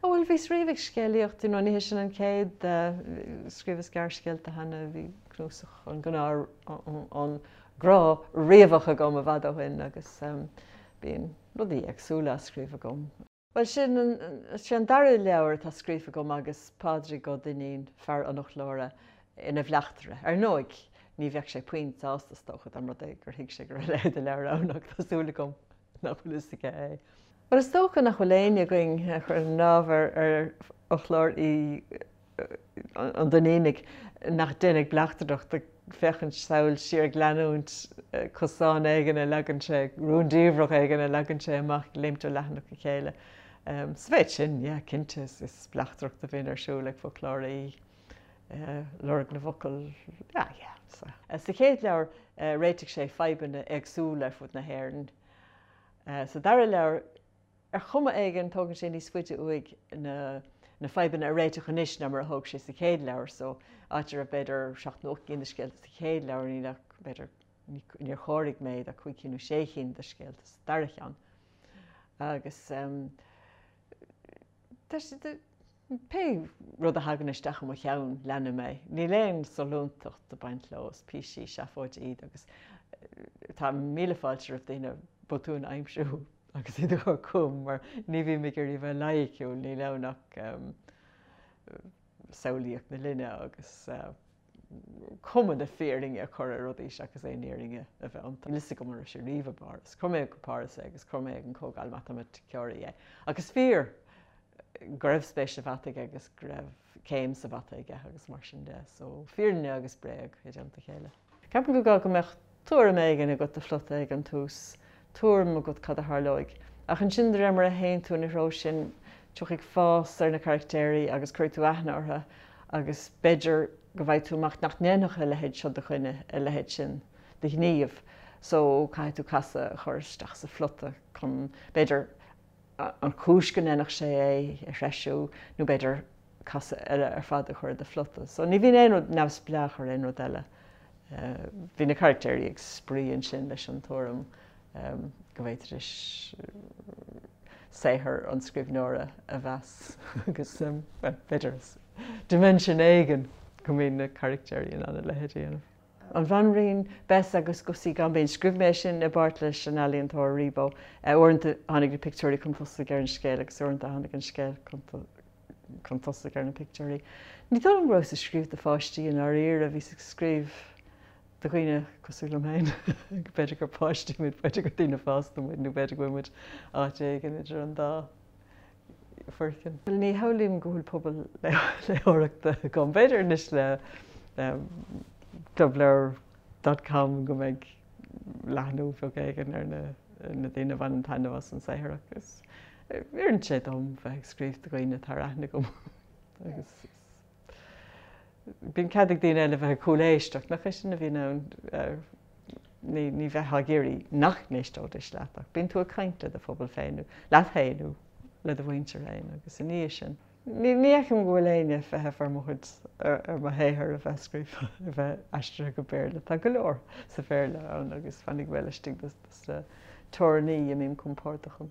Ó bhuel bhíos riamh ag scéalaíocht, you know, ní hé sin an chéad, scríobhas gearrscéalta cheana, bhí cnuasach an gnáth, an gnáth riabhach agam i bhfad ó shin agus bíonn rudaí éagsúla á scríobh agam. Bhuel sin an, sé an dara leabhar atá scríofa agam agus Pádraig Ó Duinnín, fear an fhoclóra, ina bhleachtaire. Ar ndóigh, ní bheadh sé puinn sásta is dócha dá mba rud é gur thuig sé go raibh a leithéid de leabhar ann ach tá súil agam nach bhfuil fhios aige é. Bhuel, is dócha nach bhfuil éinne againn a chuireann lámh ar fhoclóir an Duinnínigh nach dtéann ag bleachtaireacht, ag féachaint sall siar, ag leanúint cosán éigin a leagann sé, rúndiamhrach éigin a leagann sé amach, ag léimt ó leathanach go chéile. Sa mhéid sin, yeah, cinnte, is bleachtaireacht a bhíonn ar siúl ag foclóirí, lorg na bhfocal, yeah, yeah. Sa chéad leabhar, réitigh sé fadhbanna éagsúla ar fud na hÉireann. Sa dara leabhar, ar chuma éigin, tógann sé níos faide uaidh na na fadhbanna a réiteach anois ná mar a thóg sé sa chéad leabhar. So, áit a raibh b'fhéidir seacht nó ocht gcinn de scéalta sa chéad leabhar, níl ach b'fhéidir, níor chomhair mé ach cúig cinn nó sé chinn de scéalta sa dara cheann. Agus tá sé, Pé rud a thagann isteach i mo cheann, leanaim é. Níl aon sollúntacht ag baint leo, is píosaí seafóide iad agus tá míle fáilte roimh daoine botúin a aimsiú agus iad a chur chugam mar ní bhím ag iarraidh a bheith loighiciúil, níl ann ach samhlaíocht na linne agus cuma na fírinne a chur ar rudaí seachas aon fhírinne a bheith iontu. Níl fhios agam an raibh sé riamh i bPáras. Chuir mé go Páras é agus chuir mé ag an Chomhdháil Matamaiticeoirí é. Ach is fíor go raibh spéis sa mhata aige agus go raibh céim sa mhata aige agus mar sin de. So, fírinne agus bréag i dteannta a chéile. Ceapaim gur gá go mbeadh tuairim éigin agat do phlota ag an tús, tuairim agat cad a tharlóidh. Ach ansin de réir mar a théann tú ina threo sin, tiocfaidh fás ar na caractéirí agus cuirfidh tú aithne orthu agus b'fhéidir go bhfaighidh tú amach nach ndéanfadh a leithéid seo de dhuine a leithéid sin de ghníomh. So, caithfidh tú casadh a chur isteach sa phlota chun, b'fhéidir, an chúis go ndéanfadh sé é a threisiú nó b'fhéidir casadh eile ar fad a chur i do phlota. So ní bhíonn aon rud neamhspleách ar aon rud eile. Bhí na caractéirí ag spraoi ansin leis an tuairim go bhféadfaidís saothar an scríbhneora a mheas agus bhuel b'fhéidir dimension éigin go mbíonn na caractéirí in ann a leithéid a dhéanamh. An Bhanríon Bess agus Gussie Gaimbín. Scríobh mé é sin i bpáirt leis an ealaíontóir Rebo. Uaireanta tháinig na pictiúirí chun tosaigh ar an scéal agus uaireanta tháinig an scéal chun tosaigh ar na pictiúirí. Ní dóigh liom go rabhas ag scríobh do pháistí i ndáiríre, bhíos ag scríobh do dhaoine cosúil liom féin. B'fhéidir gur páistí muid, b'fhéidir gur daoine fásta muid nó b'fhéidir go bhfuil muid áit éigin idir an dá. foirceann. Ní shamhlaím go bhfuil pobal léitheoireachta agam. B'fhéidir anois le clubleabhar dot com go mbeidh leathnú beag éigin ar na daoine a bhaineann taitneamh as an saothar ach is oireann sé dom bheith ag scríobh do dhaoine atá ar aithne agam agus bíonn cead ag daoine eile bheith ag cúléisteacht, nach é sin a bhíonn ann? Ní bheifeá ag iarraidh nach n-éisteoidís leat ach bíonn tú ag caint le do phobal féin nó leat féin nó le do mhuintir féin agus i ndiaidh sin. Ní fheicim go bhfuil éinne ag feitheamh ar mo chuid, ar mo shaothar a bheith scríofa, a bheith aistrithe go Béarla. Tá go leor sa Bhéarla ann agus fanfaidh mé laistigh de na teorainní a mbím compordach ann.